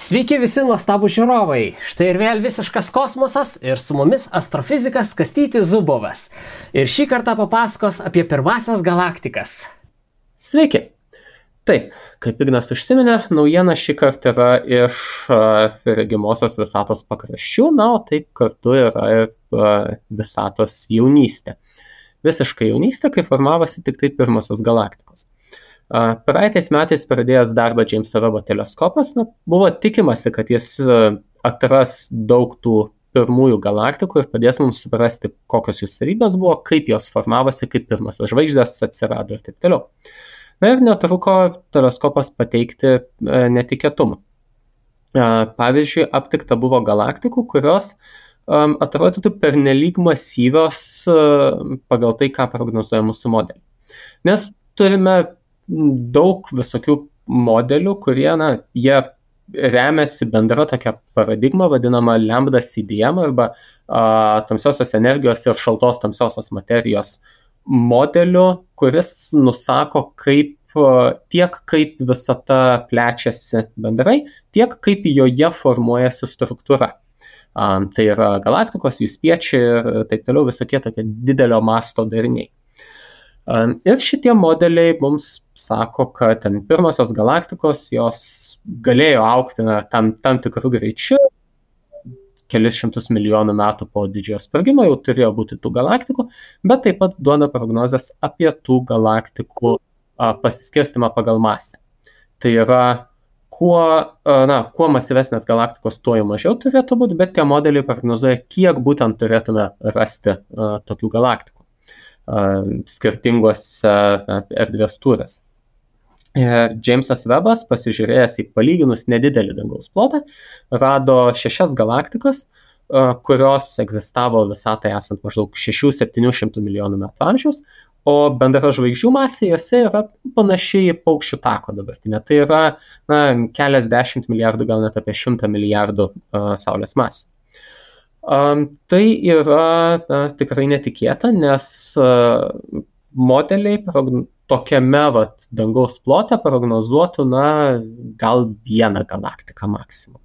Sveiki visi nuostabų žiūrovai. Štai ir vėl visiškas kosmosas ir su mumis astrofizikas Kastytis Zubovas. Ir šį kartą papasakos apie pirmasias galaktikas. Sveiki. Taip, kaip Ignas užsiminė, naujiena šį kartą yra iš regimosios visatos pakraščių, o taip kartu yra ir visatos jaunystė. Visiškai jaunystė, kai formavosi tik tai pirmosios galaktikos. Praeitais metais pradėjęs darbą Jameso Webbo teleskopas, buvo tikimasi, kad jis atras daug tų pirmųjų galaktikų ir padės mums suprasti, kokios jų savybės buvo, kaip jos formavosi, kaip pirmosios žvaigždės atsirado ir taip toliau. Ir netruko teleskopas pateikti netikėtumų. Pavyzdžiui, aptikta buvo galaktikų, kurios atrodytų pernelyg masyvios pagal tai, ką prognozuoja mūsų modeliai. Nes turime daug visokių modelių, kurie, jie remiasi bendra tokia paradigma, vadinama lambda CDM arba tamsiosios energijos ir šaltos tamsiosios materijos modeliu, kuris nusako tiek kaip visata plečiasi bendrai, tiek kaip joje formuojasi struktūra. Tai yra galaktikos, jų spiečiai ir taip toliau visokie tokie didelio masto dariniai. Ir šitie modeliai mums sako, kad pirmosios galaktikos jos galėjo augti tam tikrų greičių, kelis šimtus milijonų metų po didžiojo sprogimo jau turėjo būti tų galaktikų, bet taip pat duoda prognozes apie tų galaktikų pasiskirstimą pagal masę. Tai yra, kuo masyvesnės galaktikos, tuo jau mažiau turėtų būti, bet tie modeliai prognozuoja, kiek būtent turėtume rasti tokių galaktikų skirtingose erdvės tūriuose. Jamesas Webbas, pasižiūrėjęs į palyginus nedidelį dangaus plotą, rado 6 galaktikas, kurios egzistavo visatai esant maždaug 600–700 milijonų metų amžiaus, o bendra žvaigždžių masė jose yra panašiai į paukščių tako dabartinė. Tai yra keliasdešimt milijardų, gal net apie 100 milijardų Saulės masių. Tai yra tikrai netikėta, nes modeliai tokiame dangaus plote prognozuotų gal vieną galaktiką maksimum.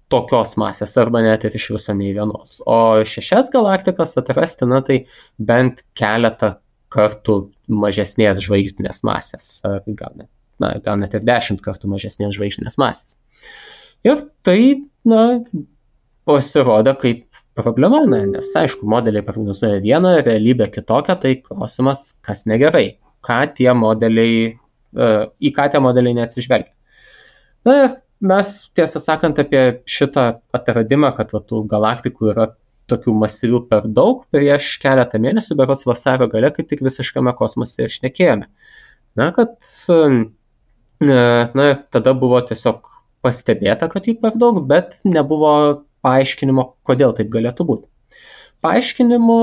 Tokios masės arba net ir iš viso nei vienos. O 6 galaktikas atrasti, tai bent keletą kartų mažesnės žvaigždinės masės, gal net ir 10 kartų mažesnės žvaigždinės masės. Ir tai, pasirodo kaip problema, nes aišku, modeliai prognozuoja vieną, realybė kitokią, tai klausimas, kas negerai, į ką tie modeliai neatsižvelgia. Ir mes, tiesą sakant, apie šitą atradimą, kad tų galaktikų yra tokių masyvių per daug, prieš keletą mėnesių, berods vasario gale, kaip tik visiškame kosmose ir šnekėjome. Tada buvo tiesiog pastebėta, kad jų per daug, bet nebuvo paaiškinimo, kodėl taip galėtų būti. Paaiškinimų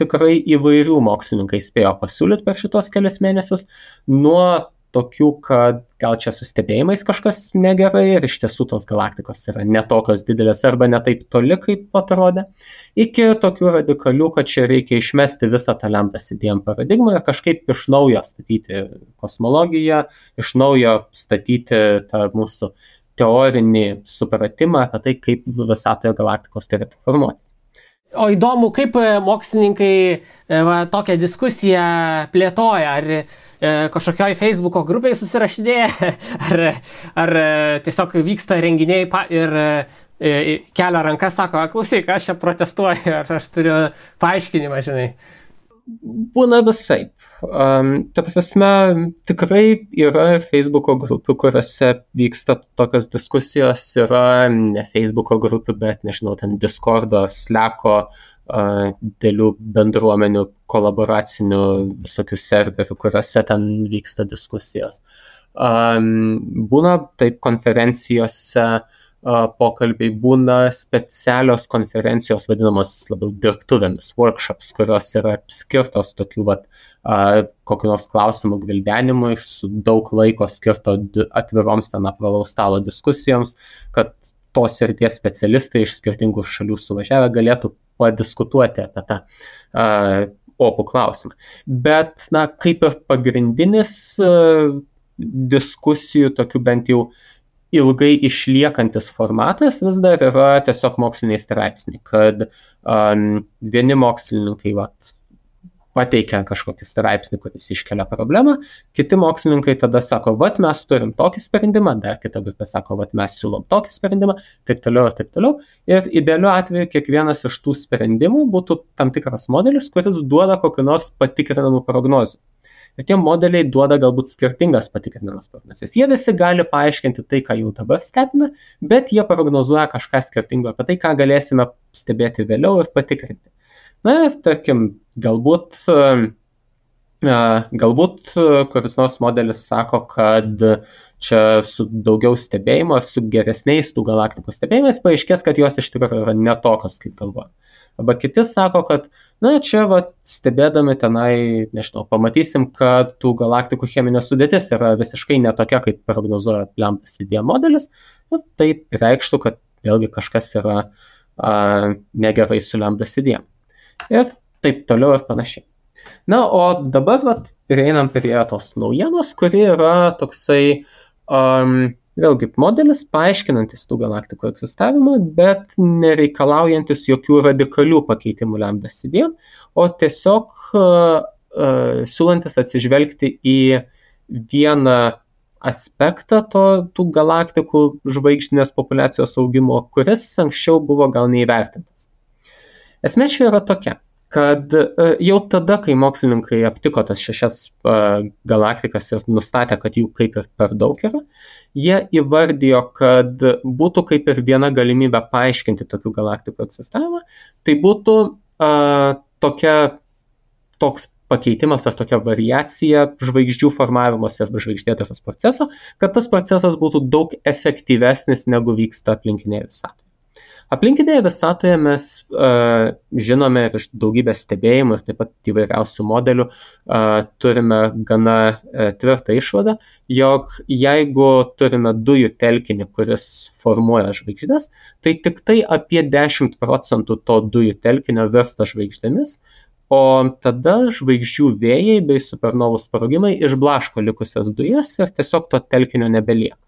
tikrai įvairių mokslininkai spėjo pasiūlyti per šitos kelias mėnesius, nuo tokių, kad gal čia su stebėjimais kažkas negerai ir iš tiesų tos galaktikos yra netokios didelės arba ne taip toli, kaip atrodė, iki tokių radikalių, kad čia reikia išmesti visą tą lambda CDM paradigmą ir kažkaip iš naujo statyti kosmologiją, iš naujo statyti tą mūsų teorinį supratimą apie tai, kaip visatoje galaktikos turėtų formuoti. O įdomu, kaip mokslininkai tokią diskusiją plėtoja, ar kažkokioj Facebooko grupėje susirašinėja, ar tiesiog vyksta renginiai ir kelia rankas, sako, klausyk, aš čia protestuoju, ar aš turiu paaiškinimą, žinai. Būna visaip. Ta prasme, tikrai yra Facebooko grupių, kuriuose vyksta tokios diskusijos, yra ne Facebooko grupių, bet, nežinau, ten Discordo, Slacko, dėlių bendruomenių, kolaboracinių visokių serverių, kuriuose ten vyksta diskusijos. Būna taip konferencijose pokalbiai, būna specialios konferencijos, vadinamos labiau dirbtuvėmis, workshops, kurios yra skirtos tokių kokių nors klausimų gvildenimui, su daug laiko skirto atviroms ten apvalaus stalo diskusijoms, kad tos srities specialistai iš skirtingų šalių suvažiavę galėtų padiskutuoti apie tą opų klausimą. Bet, kaip ir pagrindinis diskusijų, tokių bent jau ilgai išliekantis formatas vis dar yra tiesiog moksliniai straipsniai, kad vieni mokslininkai pateikia kažkokį straipsnį, kuris iškelia problemą, kiti mokslininkai tada sako, mes turim tokį sprendimą, dar kita grupė sako, mes siūlom tokį sprendimą, taip toliau ir taip toliau. Ir idealiu atveju kiekvienas iš tų sprendimų būtų tam tikras modelis, kuris duoda kokį nors patikrinamų prognozių. Ir tie modeliai duoda galbūt skirtingas patikrinamas prognozes. Jie visi gali paaiškinti tai, ką jau dabar stebime, bet jie prognozuoja kažką skirtingo apie tai, ką galėsime stebėti vėliau ir patikrinti. Na ir tarkim, galbūt kuris nors modelis sako, kad čia su daugiau stebėjimo ar su geresniais tų galaktikų stebėjimais paaiškės, kad jos iš tikrųjų yra netokios, kaip galvoja. Arba kiti sako, kad čia stebėdami tenai, nežinau, pamatysim, kad tų galaktikų cheminė sudėtis yra visiškai netokia, kaip prognozuoja Lambda-CDM modelis. Tai reikštų, kad vėlgi kažkas yra negerai su Lambda-CDM. Ir taip toliau ir panašiai. Na, o dabar prieinam prie tos naujienos, kuri yra toksai vėlgi modelis paaiškinantis tų galaktikų egzistavimą, bet nereikalaujantis jokių radikalių pakeitimų Lambda-CDM, o tiesiog siūlantis atsižvelgti į vieną aspektą tų galaktikų žvaigždinės populiacijos augimo, kuris anksčiau buvo gal neįvertintas. Esmė čia yra tokia, kad jau tada, kai mokslininkai aptiko tas 6 galaktikas ir nustatė, kad jų kaip ir per daug yra, jie įvardijo, kad būtų kaip ir viena galimybė paaiškinti tokių galaktikų egzistavimą, tai būtų toks pakeitimas ar tokia variacija žvaigždžių formavimosi arba žvaigždėtaros proceso, kad tas procesas būtų daug efektyvesnis negu vyksta aplinkinėje visatoje. Aplinkinėje visatoje mes žinome ir iš daugybės stebėjimų ir taip pat įvairiausių modelių turime gana tvirtą išvadą, jog jeigu turime dujų telkinį, kuris formuoja žvaigždės, tai tik tai apie 10% to dujų telkinio virsta žvaigždėmis, o tada žvaigždžių vėjai bei supernovų sprogimai išblaško likusias dujas ir tiesiog to telkinio nebelieka.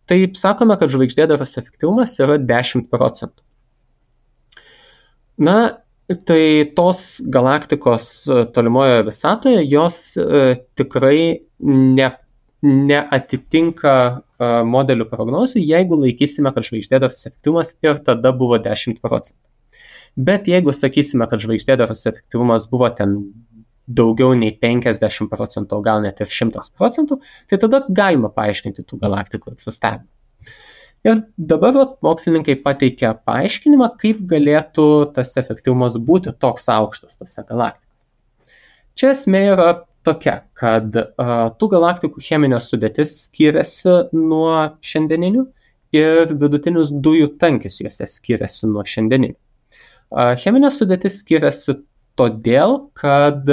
Taip sakome, kad žvaigždėdaros efektyvumas yra 10%. Na, tai tos galaktikos tolimoje visatoje, jos tikrai neatitinka modelių prognozių, jeigu laikysime, kad žvaigždėdaros efektyvumas ir tada buvo 10%. Bet jeigu sakysime, kad žvaigždėdaros efektyvumas buvo ten daugiau nei 50%, o gal net ir 100%, tai tada galima paaiškinti tų galaktikų egzistavimą. Ir dabar mokslininkai pateikia paaiškinimą, kaip galėtų tas efektyvumas būti toks aukštas tose galaktikose. Čia esmė yra tokia, kad tų galaktikų cheminė sudėtis skiriasi nuo šiandieninių ir vidutinis dujų tankis juose skiriasi nuo šiandieninių. Cheminė sudėtis skiriasi todėl, kad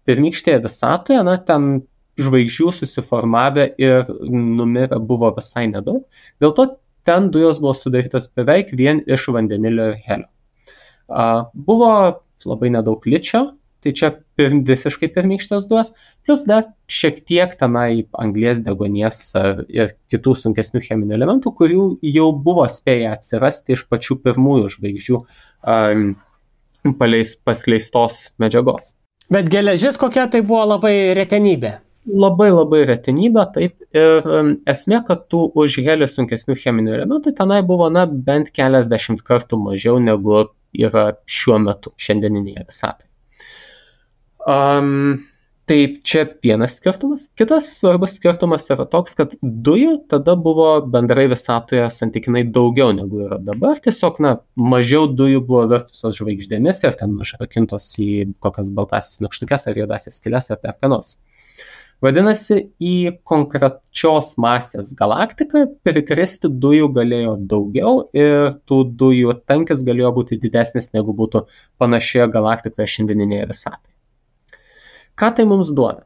pirmykštėje visatoje, ten žvaigždžių susiformavę ir numirę buvo visai nedaug, dėl to ten dujos buvo sudarytos beveik vien iš vandenilio ir helio. Buvo labai nedaug ličio, tai čia visiškai pirmykštės dujos, plus dar šiek tiek tenai anglies, deguonies ir kitų sunkesnių cheminių elementų, kurių jau buvo spėję atsirasti iš pačių pirmųjų žvaigždžių paskleistos medžiagos. Bet geležis kokia tai buvo labai retenybė? Labai retenybė, taip. Ir esmė, kad tų už helio sunkesnių cheminių elementų tenai buvo bent keliasdešimt kartų mažiau negu yra šiuo metu šiandieninėje visatoje. Tai čia vienas skirtumas. Kitas svarbus skirtumas yra toks, kad dujų tada buvo bendrai visatoje santykinai daugiau negu yra dabar. Tiesiog, mažiau dujų buvo virtusios žvaigždėmis ir ten užrakintos į kokias baltasis nykštukes ar juodasias skyles ar dar ką nors. Vadinasi, į konkrečios masės galaktiką prikristi dujų galėjo daugiau ir tų dujų tankis galėjo būti didesnis negu būtų panašioje galaktikoje šiandieninėje visatoje. Ką tai mums duoda?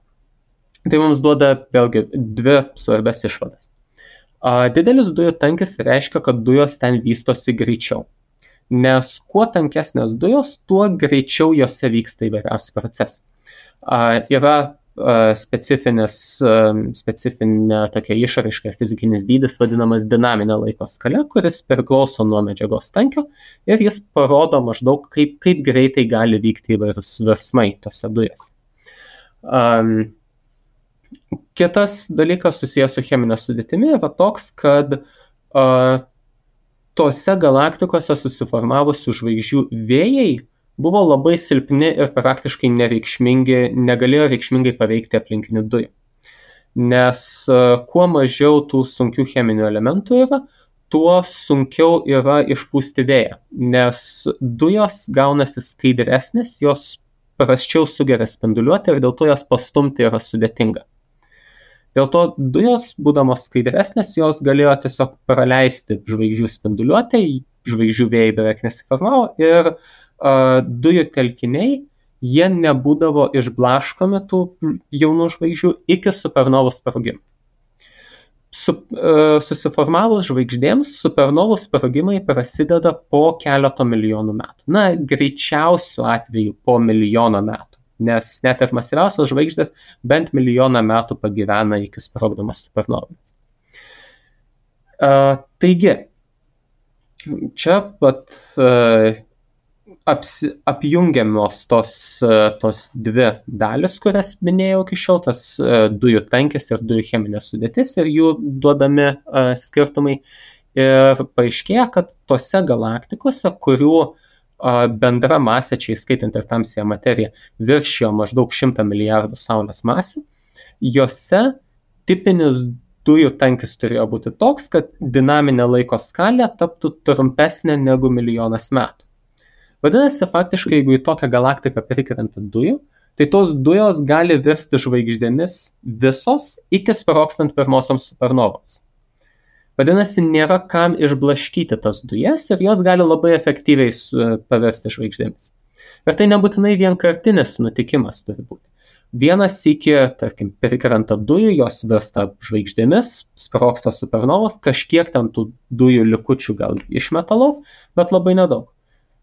Tai mums duoda vėlgi dvi svarbias išvadas. Didelis dujų tankis reiškia, kad dujos ten vystosi greičiau. Nes kuo tankesnės dujos, tuo greičiau jose vyksta įvairiausi procesai. Yra specifinė tokia išraiška, fizikinis dydis vadinamas dinaminė laiko skala, kuris priklauso nuo medžiagos tankio ir jis parodo maždaug, kaip greitai gali vykti įvairūs virsmai tose dujose. Kitas dalykas susijęs su cheminė sudėtimi yra toks, kad tose galaktikose susiformavusių žvaigždžių vėjai buvo labai silpni ir praktiškai nereikšmingi, negalėjo reikšmingai paveikti aplinkinių dujų. Nes kuo mažiau tų sunkių cheminių elementų yra, tuo sunkiau yra išpūsti vėją, nes dujos gaunasi skaidresnės, jos prasčiau sugeria spinduliuotę ir dėl to jas pastumti yra sudėtinga. Dėl to dujos, būdamos skaidresnės, jos galėjo tiesiog praleisti žvaigždžių spinduliuotę, žvaigždžių vėjai beveik nesiformavo ir dujų telkiniai, jie nebūdavo išblaškomi tų jaunų žvaigždžių iki supernovų sprogimo. Susiformavus žvaigždėms, supernovų sprogimai prasideda po keleto milijonų metų. Na, greičiausiu atveju po milijono metų, nes net ir masyviausios žvaigždės bent milijoną metų pagyvena iki sprogdamos supernovomis. Taigi, čia pat apjungiamos tos dvi dalis, kurias minėjau iki šiol, tas dujų tankis ir dujų cheminė sudėtis ir jų duodami skirtumai. Ir paaiškėja, kad tose galaktikose, kurių bendra masė, čia įskaitant ir tamsiąją materiją, viršijo maždaug 100 milijardų Saulės masių, jose tipinis dujų tankis turėjo būti toks, kad dinaminė laiko skalė taptų trumpesnė negu milijonas metų. Vadinasi, faktiškai, jeigu į tokią galaktiką prikrenta dujų, tai tos dujos gali virsti žvaigždėmis visos iki sprogstant pirmosioms supernovoms. Vadinasi, nėra kam išblaškyti tas dujas ir jos gali labai efektyviai paversti žvaigždėmis. Ir tai nebūtinai vienkartinis nutikimas turi būti. Vienas iki, tarkim, prikrenta dujų, jos virsta žvaigždėmis, sprogsta supernovos, kažkiek ten tų dujų likučių gal išmetalau, bet labai nedaug.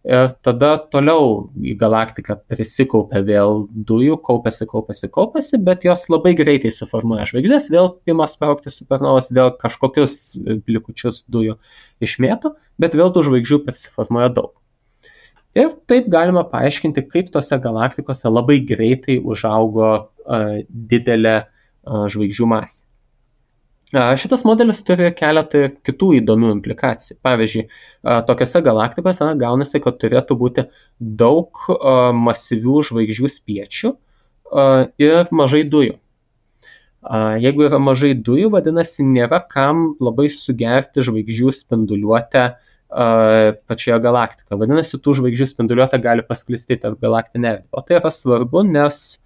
Ir tada toliau į galaktiką prisikaupia vėl dujų, kaupiasi, bet jos labai greitai suformuoja žvaigždės, vėl ima sprogti supernovos, vėl kažkokius likučius dujų išmėto, bet vėl tų žvaigždžių prisiformuoja daug. Ir taip galima paaiškinti, kaip tose galaktikose labai greitai užaugo didelė žvaigždžių masė. Šitas modelis turi keletą kitų įdomių implikacijų. Pavyzdžiui, tokiose galaktikose gaunasi, kad turėtų būti daug masyvių žvaigždžių spiečių ir mažai dujų. Jeigu yra mažai dujų, vadinasi, nėra kam labai sugerti žvaigždžių spinduliuotę pačioje galaktikoje. Vadinasi, tų žvaigždžių spinduliuotė gali pasklisti tarp galaktinę erdvę. O tai yra svarbu, nes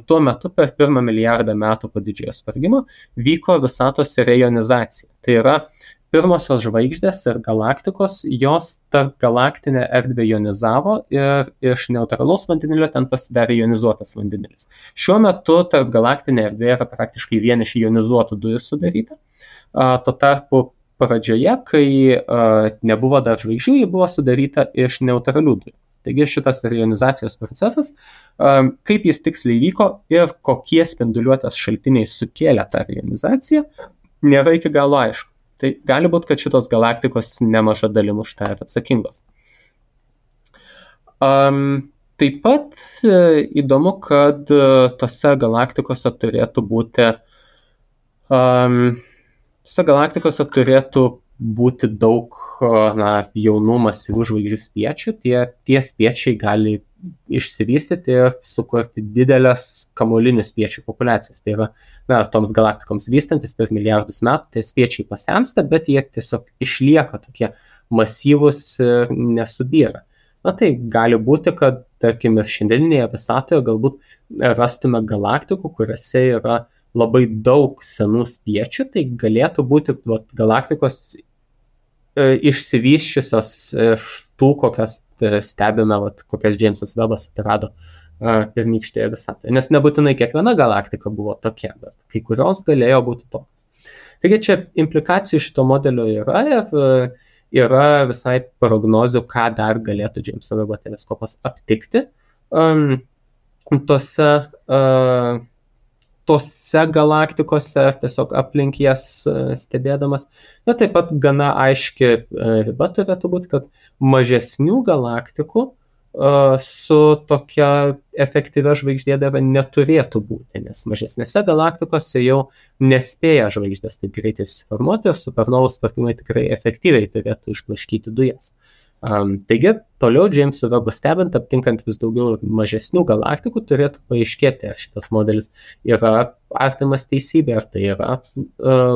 tuo metu per 1 milijardą metų po didžiojo sprogimo vyko visatos reionizacija. Tai yra pirmosios žvaigždės ir galaktikos, jos tarp galaktinę erdvę ionizavo ir iš neutralaus vandenilio ten pasidarė ionizuotas vandenilis. Šiuo metu tarp galaktinė erdvė yra praktiškai vien iš ionizuotų dujų sudaryta. Tuo tarpu pradžioje, kai nebuvo dar žvaigždžių, ji buvo sudaryta iš neutralių dujų. Taigi šitas reionizacijos procesas, kaip jis tiksliai vyko ir kokie spinduliuotės šaltiniai sukėlė tą reionizaciją, nėra iki galo aišku. Tai gali būti, kad šitos galaktikos nemaža dalim už tai yra atsakingos. Taip pat įdomu, kad tose galaktikose turėtų būti daug jaunų masyvių žvaigždžių spiečių. Tie spiečiai gali išsivystyti ir sukurti didelės kamuolinių spiečių populiacijas. Tai yra, toms galaktikoms vystantis per milijardus metų, tie spiečiai pasensta, bet jie tiesiog išlieka tokie masyvūs ir nesubyra. Tai gali būti, kad, tarkim, ir šiandieninėje visatoje galbūt rastume galaktikų, kuriuose yra labai daug senų spiečių, tai galėtų būti galaktikos išsivysčiusios iš tų, kokias stebime, kokias Džeimsas Vebas atrado pirmykštėje visatoje. Nes nebūtinai kiekviena galaktika buvo tokia, bet kai kurios galėjo būti tokios. Taigi čia implikacijų šito modelio yra ir yra visai prognozių, ką dar galėtų Džeimso Vebo teleskopas aptikti tose tose galaktikose, ar tiesiog aplink jas stebėdamas. Ir taip pat gana aiški riba turėtų būti, kad mažesnių galaktikų su tokia efektyvia žvaigždėdara neturėtų būti, nes mažesnėse galaktikose jau nespėja žvaigždės taip greitai susiformuoti ir supernovų sprogimai tikrai efektyviai turėtų išblaškyti dujas. Taigi, toliau Džeimso Vebo stebint, aptinkant vis daugiau mažesnių galaktikų, turėtų paaiškėti, ar šitas modelis yra artimas teisybė, ar tai yra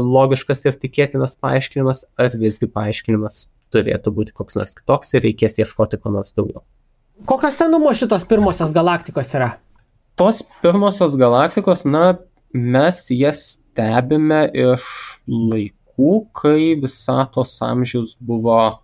logiškas ir tikėtinas paaiškinimas, ar visgi paaiškinimas turėtų būti koks nors kitoks ir reikės ieškoti ko nors daugiau. Kokio senumo šitos pirmosios galaktikos yra? Tos pirmosios galaktikos, mes jas stebime iš laikų, kai visatos amžius buvo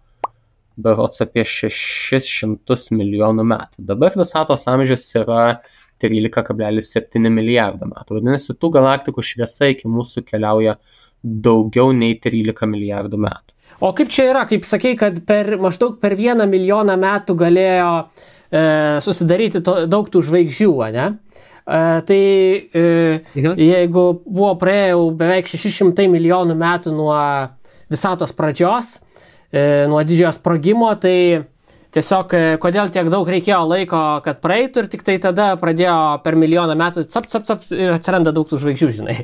berods apie 600 milijonų metų. Dabar visatos amžius yra 13,7 milijardo metų. Vadinasi, tų galaktikų šviesa iki mūsų keliauja daugiau nei 13 milijardų metų. O kaip čia yra, kaip sakei, kad maždaug per 1 milijoną metų galėjo susidaryti daug tų žvaigždžių, ne? Jeigu buvo praėjo beveik 600 milijonų metų nuo visatos pradžios, nuo didžiojo sprogimo, tai tiesiog kodėl tiek daug reikėjo laiko, kad praeitų ir tik tai tada pradėjo per milijoną metų cap ir atsiranda daug tų žvaigždžių, žinai.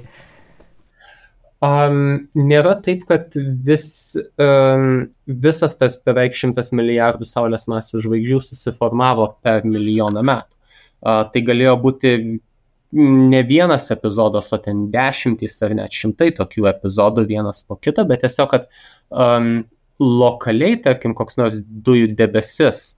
Nėra taip, kad visas tas beveik 100 milijardų Saulės masių žvaigždžių susiformavo per milijoną metų. Tai galėjo būti ne vienas epizodas, o ten 10 ar net 100 tokių epizodų vienas po kito, bet tiesiog, kad lokaliai, tarkim, koks nors dujų debesis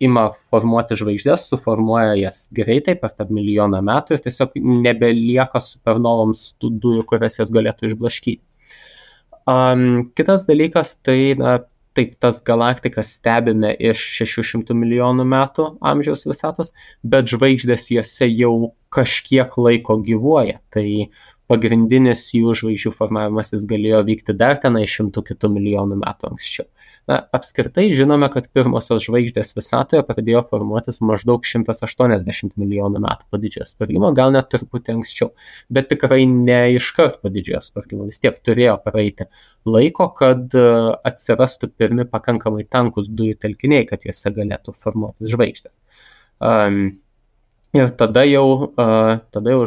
ima formuoti žvaigždės, suformuoja jas greitai per tą milijoną metų ir tiesiog nebelieka supernovoms tų dujų, kurias jas galėtų išblaškyti. Kitas dalykas, tai taip, tas galaktikas stebime iš 600 milijonų metų amžiaus visatos, bet žvaigždės jose jau kažkiek laiko gyvuoja. Tai pagrindinis jų žvaigždžių formavimasis galėjo vykti dar tenai 100 kitų milijonų metų anksčiau. Apskritai žinome, kad pirmosios žvaigždės visatoje pradėjo formuotis maždaug 180 milijonų metų po didžiojo sprogimo, gal net truputį anksčiau, bet tikrai ne iškart po didžiojo sprogimo, vis tiek turėjo praeiti laiko, kad atsirastų pirmi pakankamai tankus dujų telkiniai, kad juose galėtų formuotis žvaigždės. Ir tada jau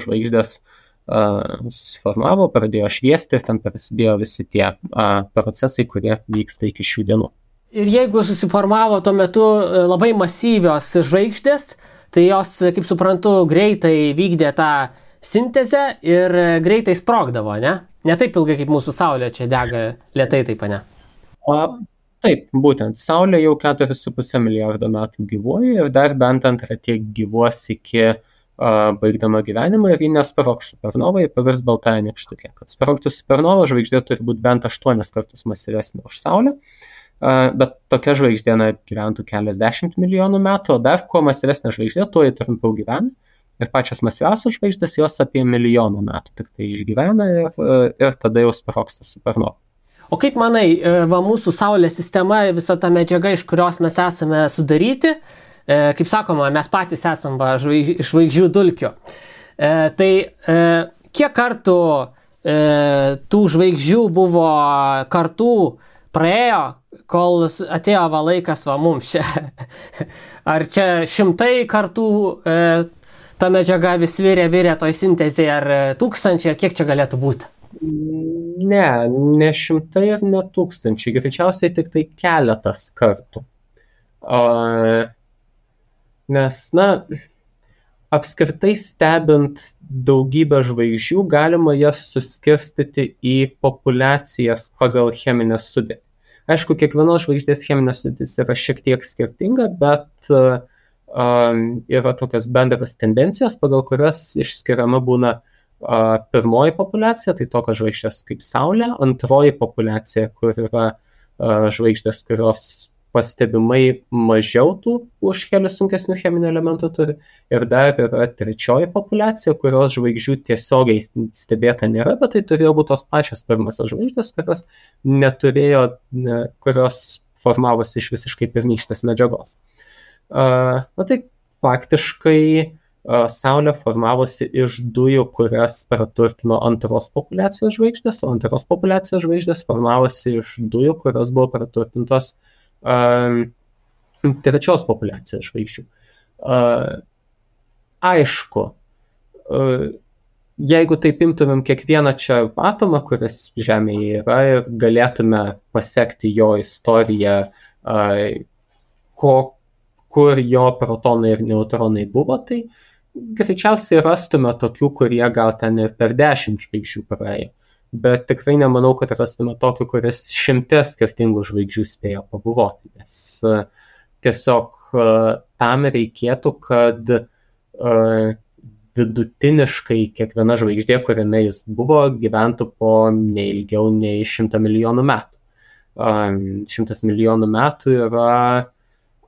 žvaigždės susiformavo, pradėjo šviesti ir ten prasidėjo visi tie procesai, kurie vyksta iki šių dienų. Ir jeigu susiformavo tuo metu labai masyvios žvaigždės, tai jos, kaip suprantu, greitai vykdė tą sintezę ir greitai sprogdavo, ne? Ne taip ilgai kaip mūsų Saulė čia dega lėtai, taip, ne? Taip, būtent. Saulė jau 4,5 milijardo metų gyvuoja ir dar bent antrą tiek gyvuos iki baigdama gyvenimą ir ji nesprogs supernovai, pavirs baltąją nykštukę. Kad sprogtų supernova, žvaigždė turi būti bent 8 kartus masyvesnė už Saulę, bet tokia žvaigždė gyventų keliasdešimt milijonų metų, o dar kuo masyvesnė žvaigždė, tuo jį trumpiau gyvena. Ir pačios masyviausios žvaigždės jos apie milijoną metų tik tai išgyvena ir tada jau sprogsta supernova. O kaip manai, mūsų Saulės sistema, visa ta medžiaga, iš kurios mes esame sudaryti, kaip sakoma, mes patys esam žvaigždžių dulkių. Tai kiek kartų tų žvaigždžių buvo kartų praėjo, kol atėjo laikas mums čia? Ar čia 100 kartų ta medžiaga vis virė toj sintezėje, ar 1000, ar kiek čia galėtų būti? Ne 100 ir ne 1000, greičiausiai tik tai keletas kartų. Nes, apskritai stebint daugybę žvaigždžių, galima jas suskirstyti į populiacijas pagal cheminę sudėtį. Aišku, kiekvienos žvaigždės cheminė sudėtis yra šiek tiek skirtinga, bet yra tokios bendras tendencijos, pagal kurias išskiriama būna pirmoji populiacija, tai tokios žvaigždės kaip Saulė, antroji populiacija, kur yra žvaigždės, kurios pastebimai mažiau tų už kelius sunkesnių cheminių elementų turi. Ir dar yra trečioji populiacija, kurios žvaigždžių tiesiogiai stebėta nėra, bet tai turėjo būti tos pačios pirmosios žvaigždės, kurios neturėjo, kurios formavosi iš visiškai pirmykštės medžiagos. Tai faktiškai Saulė formavosi iš dujų, kurias praturtino antros populiacijos žvaigždės, o antros populiacijos žvaigždės formavosi iš dujų, kurios buvo praturtintos trečios populiacijos žvaigždžių. Aišku, jeigu taip imtumėm kiekvieną čia atomą, kuris Žemėje yra, ir galėtume pasekti jo istoriją, kur jo protonai ir neutronai buvo, tai greičiausiai rastume tokių, kurie gal ten ir per 10 žvaigždžių praėjo. Bet tikrai nemanau, kad rastume tokių, kuris 100 skirtingų žvaigždžių spėjo pabuvoti. Nes tiesiog tam reikėtų, kad vidutiniškai kiekviena žvaigždė, kuriame jis buvo, gyventų po neilgiau nei 100 milijonų metų. 100 milijonų metų yra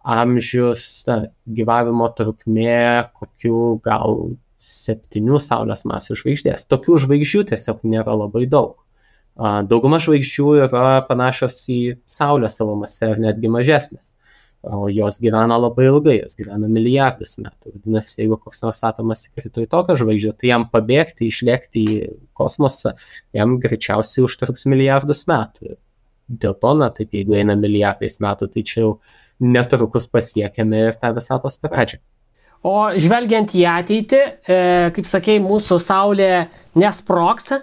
amžius, gyvavimo trukmė kokių gal 7 Saulės masių žvaigždės. Tokių žvaigždžių tiesiog nėra labai daug. Dauguma žvaigždžių yra panašios į Saulę savo mase ir netgi mažesnės. O jos gyvena labai ilgai, jos gyvena milijardus metų. Vadinasi, jeigu koks nors atomas įkrito į tokią žvaigždę, tai jam pabėgti, išlėkti į kosmosą, jam greičiausiai užtruks milijardus metų. Dėl to, taip, jeigu eina milijardais metų, tai čia jau netrukus pasiekėme ir tą visatos pradžią. O žvelgiant į ateitį, kaip sakei, mūsų Saulė nesprogs,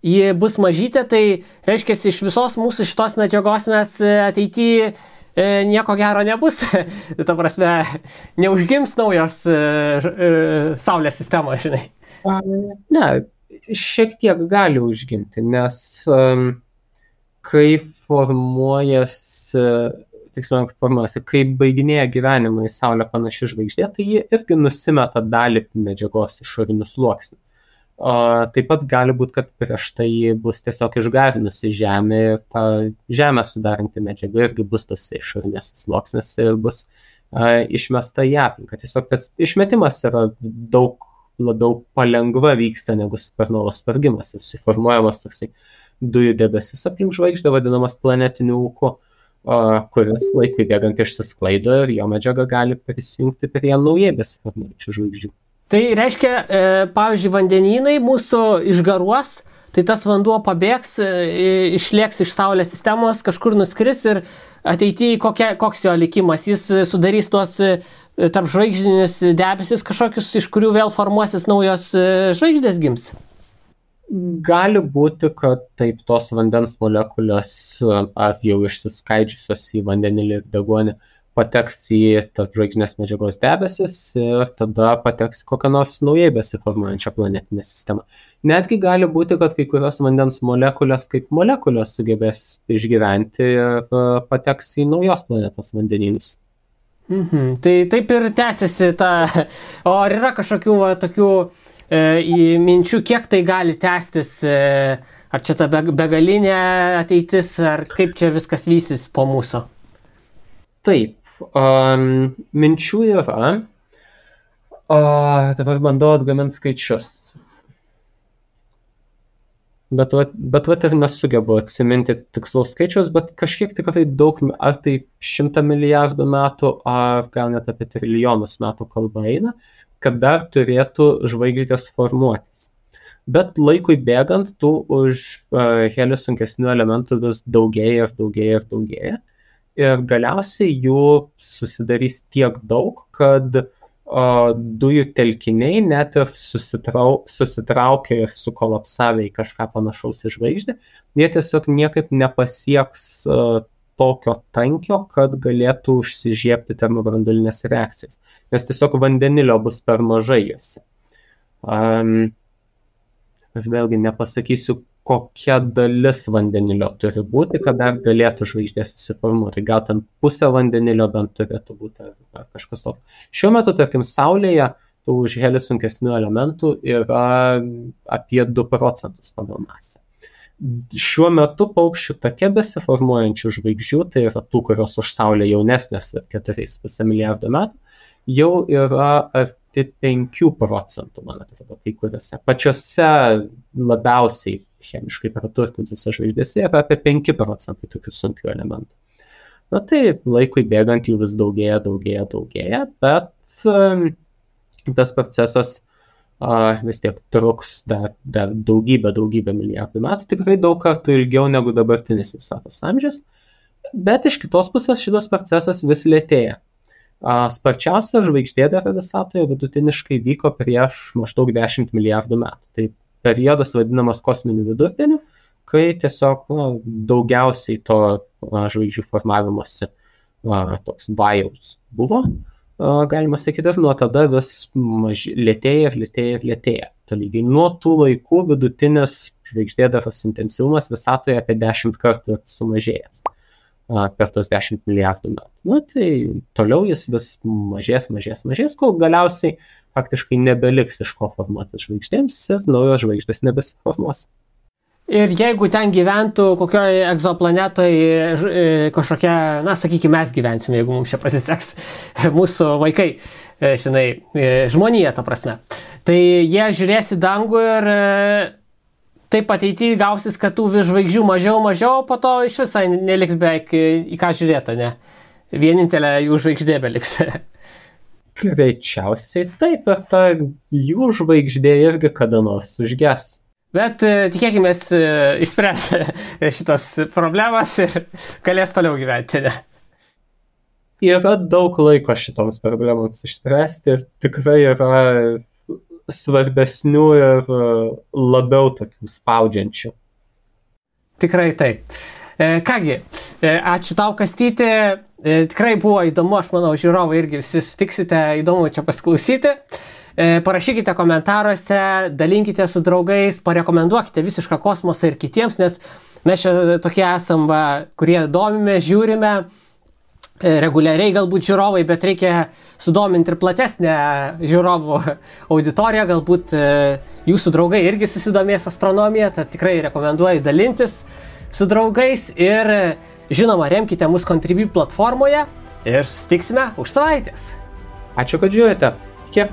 ji bus mažytė, tai reiškia, iš visos mūsų šitos medžiagos mes ateityje nieko gero nebus. Ta prasme, neužgims naujos Saulės sistemos, žinai. Ne, šiek tiek gali užgimti, nes kai formuojasi, kai baiginėja gyvenimą į Saulę panaši žvaigždė, tai ji irgi nusimeta dalį medžiagos išorinių sluoksnių. Taip pat gali būti, kad prieš tai bus tiesiog išgarinusi Žemę ir ta Žemę sudaranti medžiaga irgi bus tos išorinės sluoksnės ir bus išmesta į aplinką. Tiesiog tas išmetimas yra daug labiau palengva vyksta negu supernovos sprogimas. Susiformuojamas toksai dujų debesis aplink žvaigždę, vadinamas planetiniu ūku, kuris laikui bėgant išsisklaido ir jo medžiaga gali prisijungti prie naujai besiformuojančių žvaigždžių. Tai reiškia, pavyzdžiui, vandenynai mūsų išgaruos, tai tas vanduo pabėgs, išlėks iš Saulės sistemos, kažkur nuskris ir ateityje koks jo likimas. Jis sudarys tuos tarpžvaigždinius debesis kažkokius, iš kurių vėl formuosis naujos žvaigždės gims. Gali būti, kad taip tos vandens molekulės ar jau išsiskaidžiusios į vandenilį ir deguonį pateks į tarpžvaigždinės medžiagos debesis ir tada pateks kokią nors naujai besiformuojančią planetinę sistemą. Netgi gali būti, kad kai kurios vandens molekulės kaip molekulės sugebės išgyventi ir pateks į naujos planetos vandenynus. Tai taip ir tęsiasi ta. O ar yra kažkokių tokių minčių, kiek tai gali tęstis? Ar čia ta begalinė ateitis, ar kaip čia viskas vysis po mūsų? Taip. Minčių yra, dabar bandau atgaminti skaičius, bet ir nesugebu atsiminti tikslaus skaičius, bet kažkiek tikrai daug, ar tai 100 milijardų metų, ar gal net apie trilijonus metų kalba eina, kad dar turėtų žvaigždės formuotis. Bet laikui bėgant, tų už helio sunkesnių elementų vis daugėja ir daugėja ir daugėja. Ir galiausiai jų susidarys tiek daug, kad dujų telkiniai net ir susitraukia ir sukolapsavę į kažką panašaus į žvaigždę, jie tiesiog niekaip nepasieks tokio tankio, kad galėtų užsižiebti termobranduolinės reakcijos, nes tiesiog vandenilio bus per mažai juose. Aš vėlgi nepasakysiu, kokia dalis vandenilio turi būti, kad dar galėtų žvaigždė susiformuoti. Gal ten pusė vandenilio bent turėtų būti ar kažkas tokio. Šiuo metu, tarkim, Saulėje tų už helio sunkesnių elementų yra apie 2% pagal masę. Šiuo metu paukščių take besiformuojančių žvaigždžių, tai yra tų, kurios už Saulę jaunesnės 4,5 milijardo metų, jau yra arti 5%, man atrodo, kai kuriuose. Pačiose labiausiai chemiškai praturtintose žvaigždėse yra apie 5% tokių sunkių elementų. Na tai laikui bėgant jų vis daugėja, bet tas procesas vis tiek truks dar daugybę milijardų metų, tikrai daug kartų ilgiau negu dabartinis visatos amžius, bet iš kitos pusės šitas procesas vis lėtėja. Sparčiausia žvaigždėdara visatoje vidutiniškai vyko prieš maždaug 10 milijardų metų. Tai periodas vadinamas kosminiu vidurdieniu, kai tiesiog daugiausiai to žvaigždžių formavimosi toks vajaus buvo. Galima sakyti, ir nuo tada vis lėtėja. Tolygiai nuo tų laikų vidutinis žvaigždėdaros intensyvumas visatoje apie 10 kartų sumažėjęs per tos 10 milijardų metų. Tai toliau jis vis mažės, kol galiausiai faktiškai nebeliks iš ko formuotis žvaigždėms ir naujos žvaigždės nebesiformuos. Ir jeigu ten gyventų kokioje egzoplanetoje kažkokia, sakykime, mes gyvensime, jeigu mums čia pasiseks, mūsų vaikai, žmonija, ta prasme, tai jie žiūrės į dangų ir taip ateityje gausis, kad tų žvaigždžių mažiau, po to iš visai neliks beveik į ką žiūrėti, ne? Vienintelė jų žvaigždė beliks. Greičiausiai taip, ir ta jų žvaigždė irgi kada nors užges. Bet tikėkime, išspręs šitos problemas ir galės toliau gyventi, ne? Yra daug laiko šitoms problemams išspręsti ir tikrai yra svarbesnių ir labiau tokių spaudžiančių. Tikrai taip. Kągi, ačiū tau, Kastyti. Tikrai buvo įdomu, aš manau, žiūrovai irgi visi sutiksite, įdomu čia pasiklausyti. Parašykite komentaruose, dalinkite su draugais, parekomenduokite visišką kosmosą ir kitiems, nes mes čia tokie esam, kurie domime, žiūrime, reguliariai galbūt žiūrovai, bet reikia sudominti ir platesnę žiūrovų auditoriją, galbūt jūsų draugai irgi susidomės astronomiją, tad tikrai rekomenduoju dalintis su draugais ir žinoma, remkite mus Contribui platformoje ir susitiksime už savaitės. Ačiū, kad žiūrite. Iki.